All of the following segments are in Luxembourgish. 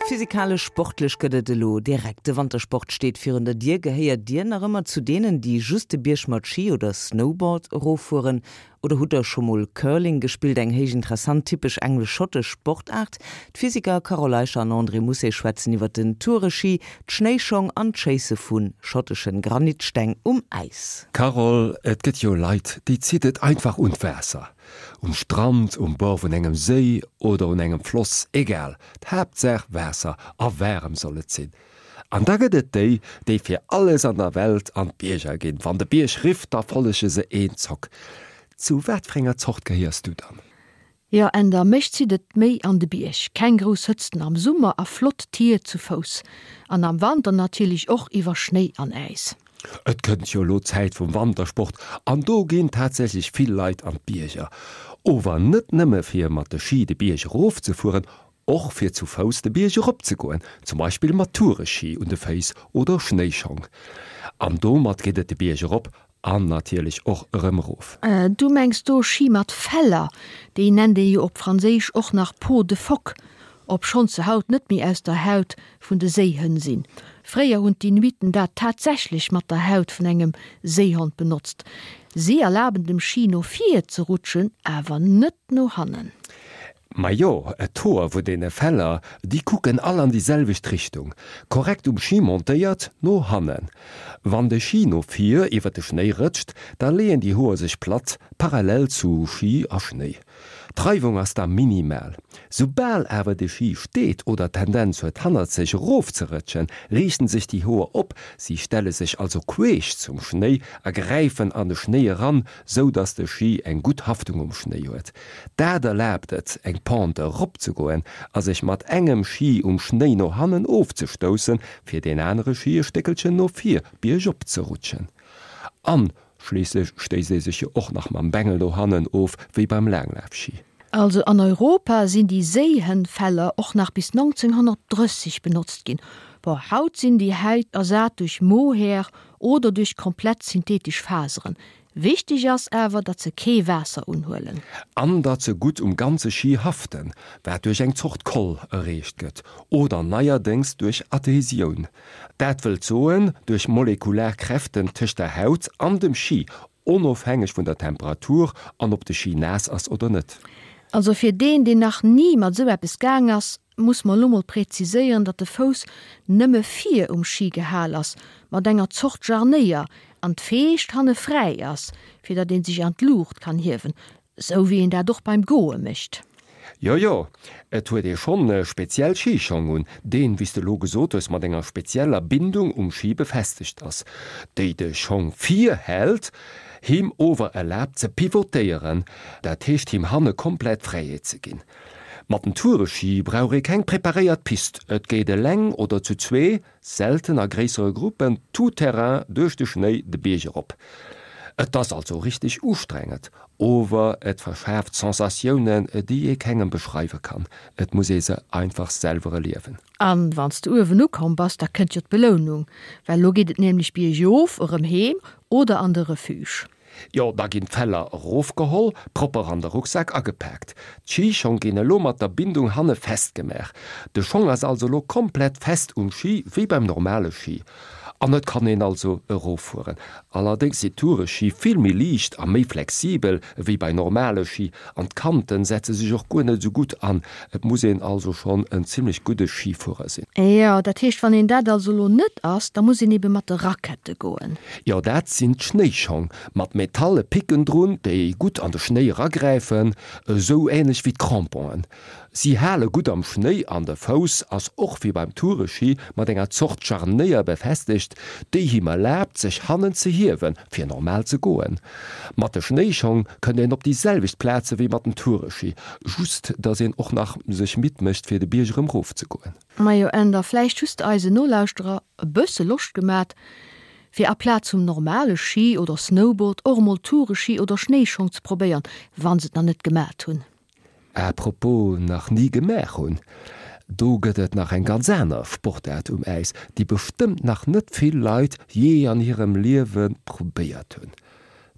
Physikalesch, sportlech gëtt et elo direkt. De Wantersport steet virun der Dier. Gehéiert Dir nach ëmmer zu deenen, déi just de Bierg mat Ski oder Snowboard eroffueren? Oder hutt Der scho mol Curling gespillt, eng héich interessant, typesch englesch-schottesch Sportaart? D'Physiker Carole Eicher an André Mousset schwätzen iwwer den Toureski, d'Schnéischong an d'Schéisse vu schotteschen Granitsteng um Äis. Carole, et gëtt jo Leit, déi zitt et einfach un d'Waasser. Um Strand, um Bord vun engem Séi oder un engem Floss, egal, d'Haaptsaach Waasser a waarem soll et sinn. An da gëtt et déi, déi fir alles an der Welt an d'Bierger ginn. Wann de Bierg rifft, da follege se eenzock. Zu wat fir enger Zort gehéiers du dann? Jo, Änder, mech zitt et méi an de Bierg. Keng grouss Hëtzten am Summer a flott Tier zu Fouss. An am Wanter natierlech och iwwer Schnéi an Äis. Et kënnt jo elo d'Zäit vum Wantersport an do ginn tatsächlech vill Leit an d'Bierger. Ower net nëmme fir mat de Ski de Bierg erof ze fueren, och fir zu Fouss de Bierg erop ze goen, zum Beispill mat Toureski un de Féiss oder Schnéischong. An domat geet et de Bierg erop an natierlech och erëm erof. Du mengs do Ski mat Feller, déi nennt ee jo op Franséisch och nach Peau de phoque. Obschonns se haut net méi aus der Haut vun de Séihënn sinn. Fréier hunn d'Inuiten dat tatsächlech mat der Haut vun engem Séihond benotzt. Si erlaben dem Ski no vir ze rutschen, awer net no hannen. Majo, d'Hoer vun deene Feller, déi kucken all an déi selwecht Richtung. Korrekt um Ski montéiert, no hannen. Wann de Ski no vir iwwer de Schnéi rëtscht, da leeën déi Hoer sech platt, parallel zu Ski a Schnéi. D'Reiwung ass da minimal. Soubal awer de Ski steet oder d'Tendenz huet hannert sech erofzerëtschen, riichten sech déi Hoer op, si stelle sech also queesch zum Schnéi a gräifen an de Schnéi eran, sou dass de Ski eng gutt Haftung um Schnéi huet. Dat erlaabt et, eng Pente eropzegoen a sech mat engem Ski um Schnéi no hannen ofzestoussen, fir deen anere Ski e Stéckelchen no vir biergop ze rutschen. An Schliisslech stéisst ee sech jo och nach mam Bengel no hannen of, wéi beim Laanglafschi. Also an Europa sinn déi Séihënnfeller och nach bis 1930 benotzt ginn. Bon, haut sinn déi Häit ersat duerch Mohair oder duerch komplett synthetesch Faseren. Wichteg ass awer, datt se kee Waasser unhuelen. An datt se gutt um ganze Schi haften, wat duerch eng Zort Koll erreecht gëtt, oder neierdéngs duerch Adhesioun. Dat wëllt soen, duerch molekular Kräften tëscht der Haut an dem Ski, onofhängeg vun der Temperatur an ob de Ski naass ass oder net. Also fir deen, deen nach ni mat esou eppes gaang ass, muss mer elo mol präziséieren, datt de Fouss nëmme vir um Ski gehal ass, mat enger Zort Jarnéier, an d'Feescht hanne fräi ass, fir datt ee sech an d'Luucht kann hiewen. Sou wéi een dat och beim Goe mécht. Jo, jo, et huet ee schonn speziell Schischong un, deen, wéi s de elo gesot hues, mat enger spezieller Bindung um Schi befestegt ass, déi de Schong vir hält, him ower erlaabt ze pivotéieren, dat heescht him hanne komplett Fräiheet ze ginn. Mat den Toureschi brauch ee keng preparéiert Pist, et geet eleng oder zu zwee, Selten a gréissere Gruppen, tout terrain, duerch de Schnéi de Bierg erop. Et ass also richteg ustrengend, ower et verschaaft Sensatiounen, déi ee kengem beschreiwe kann. Et muss ee se einfach selwer erliewen. An wann s de uewen ukomm bass, da kënnt jo d'Belounung, well lo geet et nämlech biergof erëm heem oder an de Refuge. Jo, da ginn d'Feller erofgeholl, propper an de Rucksak agepaakt. D'Schischong ginn elo mat der Bindung hanne festgemaach. De Schong ass also elo komplett fest um Schi, wéi beim normale Schi. An et kann een also eroffueren. Allerdéngs si Toureschi vill méi liicht a méi flexibel ewéi bei normale Schi an d'Kanten setze sech och guer net esou gutt an. Et muss een also schonn en zimmlech gudde Schifuerer sinn. Jo, dat heescht, wann een dat also elo net ass, da muss een ebe mat de Rackette goen. Jo, dat sinn d'Schnéischong, mat metalle Picken drun, déi gutt an de Schnéi eragräifen, esou änlech wéi d'Cramponen. Si hale gutt am Schnéi an de Fouss ass och wéi beim Toureschi mat enger Zort Scharnéier befestegt, déi him erlaabt, sech hannen ze hiewen, fir normal ze goen. Mat de Schnéischong kënnt een op déi selwecht Plaze wéi mat den Toureschi, just dass een och nach sech midd mécht fir de Bierg erëm rof ze goen. Majo Änder, vläicht hues de eisen Nolauschterer e bësse Loscht gemat, fir aplaz vum normale Ski oder Snowboard och emol Toureschi oder Schnéischong ze probéiern, wann se et nach net gemat hunn. À propos nach ni gemaach hunn, do gëtt et nach eng ganz aner Sportaart um Äis, déi bestëmmt nach net vill Leit jee an hirem Liewe probéiert hunn,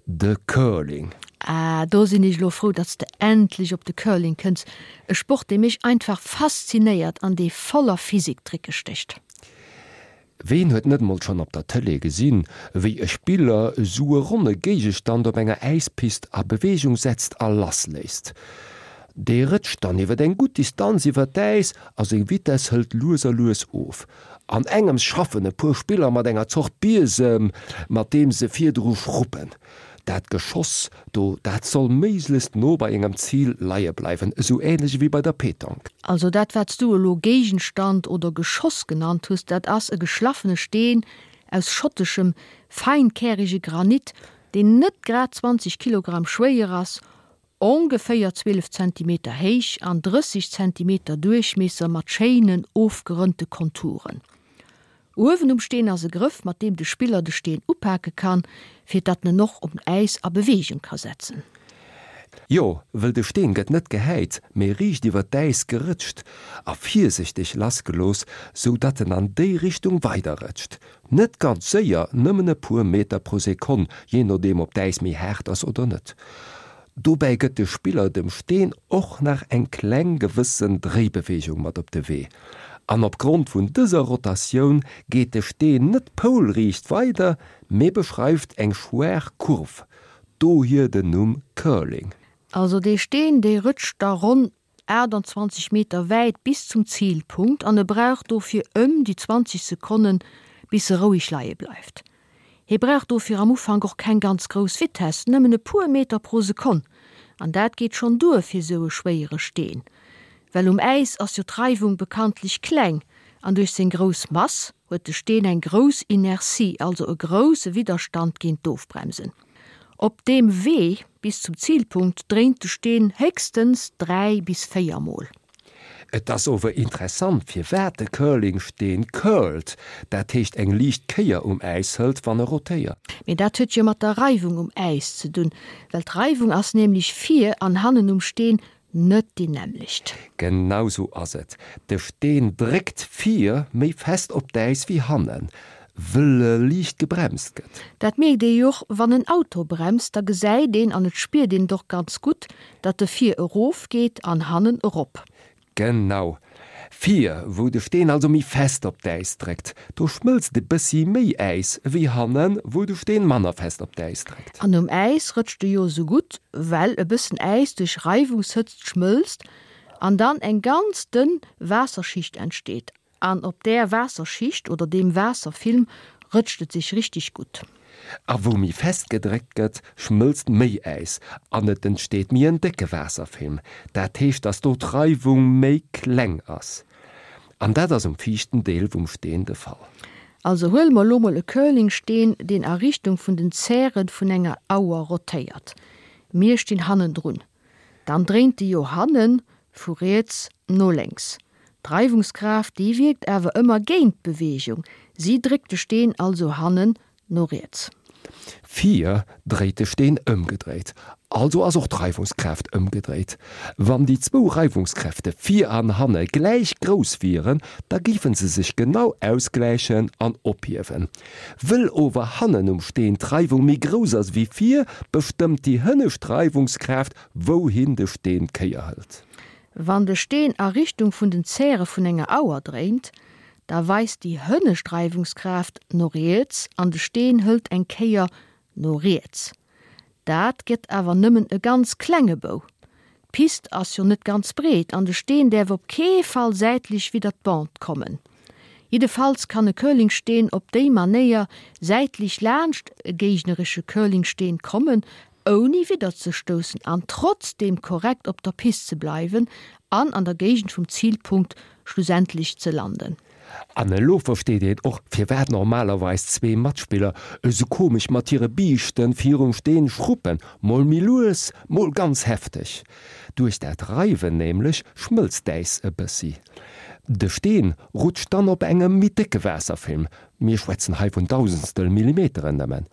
de Curling. Ah, do sinn ech elo frou, datt s de endlech op de Curling kënns, e Sport, dee mech einfach faszinéiert an dee voller Physiktricke stécht. Ween huet net mol schonn op der Tëlee gesinn, wéi e Spiller esou e ronne Géigestand op enger Äispist a Beweegung setzt a lassléisst? Dee rëtscht dann iwwer eng gutt Distanz iwwer d'Äis a seng Vitess hëlt lues a lues of. An engems schaffen e puer Spiller mat enger Zort Biesem, mat deem se virdru schruppen. Dat Geschoss do, dat soll méiglechst no bei engem Zil leie bleiwen, esou ähnlech ewéi bei der Pétanque. Also dat wat s du elo Géigenstand oder Geschoss genannt hues, dat ass e geschlaffene Steen aus schotteschem feinkärige Granit, deen net grad 20 Kilogramm schwéier ass, ongeféier 12 Zentimeter héich an 30 Zentimeter Duerchmiesser mat schéinen ofgerënnte Konturen. Uewen um Steen ass e Grëff, mat deem de Spiller de Steen upake kann, fir datt en en och um Äis a Beweegung ka setzen. Jo, wëll de Steen gëtt net gehäit, mee riicht iwwer d'Äis gerëtscht a virsichteg lassgelooss, sou datt en an déi Richtung weiderrëtscht. Net ganz séier, nëmmen e puer Meter pro Sekonn, jee nodeem ob d'Äis méi haart ass oder net. Dobäi gëtt de Spiller dem Steen och nach eng kleng gewëssen Dréibeweegung mat op de Wee. An opgrond vun dëser Rotatioun geet de Steen net poulriicht weider, mee beschreift eng schwaach Kurv, dohier den Numm Curling. Also dee Steen, dee rëtscht da ronn 28 Meter wäit bis zum Zilpunkt an e brauch dofir ëm déi 20 Sekonnen, bis e roueg leie bleift. Hie brauch dofir am Ufank och keng ganz grouss Vitess, nëmmen e puer Meter pro Sekonn, an dat geet schonn duer fir sou e schwéiere Steen. Well um Äis ass jo d'Reiwung bekanntlech kleng an duerch seng grouss Mass huet de Steen eng grouss Inertie, also e grousse Widderstand géint d'Ofbremsen. Op deem Wee bis zum Zilpunkt dréint de Steen héchstens 3 bis 4 Mol. Et ass ower interessant firwat de Curlingsteen curlt, dat heescht eng liicht Kéier um Äis hëlt wann e rotéiert. Mee dat huet jo mat der Reiwung um Äis ze dunn, well d'Reiwung ass nämlech vir an hannen um Steen Net déi nämmlecht. Genau sou ass et. De Steen dréckt vir méi fest op d'Äis wéi hannen, wëll e liicht gebremst gëtt. Dat mierkt ee jo och wann en Auto bremst, da gesäit een an et spiert een et och ganz gutt, datt e vir erof geet an hannen erop. Genau. Vir, wou de Steen also méi fest op d'Äis dréckt, do schmëlzt e bëssi méi Äis ewéi hannen, wou de Steen manner fest op d'Äis dréckt. An um Äis rëtscht e jo esou gutt, well e bëssen Äis duerch Reiwungshëtzt schmëlzt an dann eng ganz dënn Waasserschicht entsteet. An op där Waasserschicht oder deem Waasserfilm rëtscht et sech richteg gutt. A wou méi fest gedréckt gëtt, schmëlzt méi Äis an et entsteet méi en décke Waasserfilm. Dat heescht, dass do d'Reiwung méi kleng ass. An dat ass um viischten Deel vum Steen de Fall. Also huele mer elo mol e Curlingsteen, deen a Richtung vun den Zäre vun enger Auer rotéiert. Mir stinn hannendrun. Dann dréint de jo hannen vu riets no lénks. D'Reiwungskraaft, déi wierkt awer ëmmer géint d'Beweegung, si dréckt de Steen also hannen no riets. Vir dréit de Steen ëmgedréit, also ass och d'Reiwungskraaft ëmgedréit. Wann déi zwou Reiwungskräfte vir an hanne gläich grouss wieren, da géife se sech genau ausgläichen an ophiewen. Wëll ower hannen um Steen d'Reiwung méi grouss ass ewéi vir, bestëmmt déi hënnescht Reiwungskraaft, wouhin de Steen d'Kéier hëlt. Wann de Steen a Richtung vun den Zäre vun enger Auer dréint, da weist déi hënnescht Reiwungskraaft no riets an de Steen hëlt eng Kéier no riets. Dat gëtt awer nëmmen e ganz klenge Bou. D'Pist ass jo net ganz breet an de Steen däerf op kee Fall säitlech widder d'Bande kommen. Jiddefalls kann e Curlingsteen op déi Manéier säitlech laanscht e géigneresche Curlingsteen kommen, ouni widderzestoussen an trotzdeem korrekt op der Pist ze bleiwen an an der Géigend vum Zilpunkt schlussendlech ze landen. An elo versteet een och, firwat normalerweis zwee Matspiller esou komesch mat hire Biischten virum Steen schruppen, mol méi lues, mol ganz hefteg. Duerch dat Reiwen nämlech schmëlzt d'Äis e bëssi. De Steen rutscht dann op engem méi décke Waasserfilm, mir schwätzen hei vun Dausendstel Millimeteren nëmmen,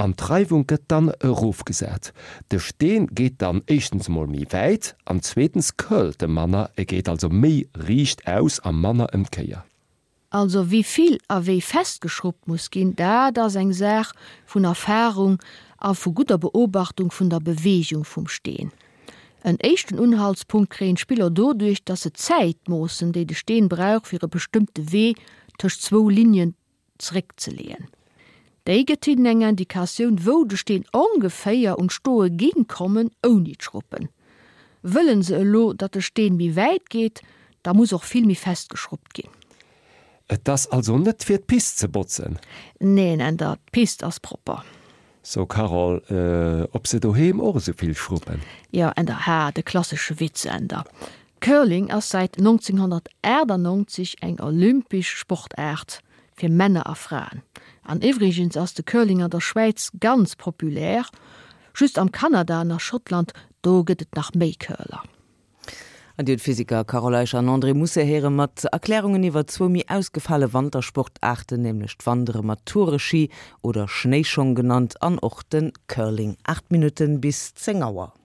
an d'Reiwung gëtt dann erofgesat. De Steen geet dann éischtens emol méi wäit an zweetens curlt e manner, e geet also méi riicht aus a manner ëm d'Kéier. Also wéi vill a wéi fest geschruppt muss ginn, dat ass eng Saach vun Erfarung. a vu gudder Beobachtung vun der Beweegung vum Steen. En éischten Unhaltspunkt kréien d'Spiller doduerch, dass se d'Zäit moossen, déi de Steen brauch fir e bestëmmte Wee tëscht zwou Lignen zeréckzeleeën. Déi gëtt hinnen eng Indikatioun, wou de Steen ongeféier un d'Stoe géing kommen ouni d'Schruppen. Wëllen se elo, datt de Steen méi wäit geet, da muss och vill méi fest geschruppt ginn. Et ass also net fir d'Pist ze botzen? Neen, Änder, d'Pist ass propper. So Carole, ob se doheem och esou vill schruppen? Jo, Änder, ha, de klassesche Witz, Änder. Curling ass säit 1998 eng olympesch Sportaart fir Männer a Fraen. An iwwregens ass de Curling an der Schwäiz ganz populär, just am Kanada an a Schottland, do gëtt et nach méi Curler. An Dir hutt d'Physiker Carole Eicher an André Mousset héiere mat Erklärungen iwwer zwou méi ausgefale Wantersportaarten, nämlech d'Wandere mat Toureski oder Schnéischong genannt an och de Curling. 8 Minutten bis 10 Auer.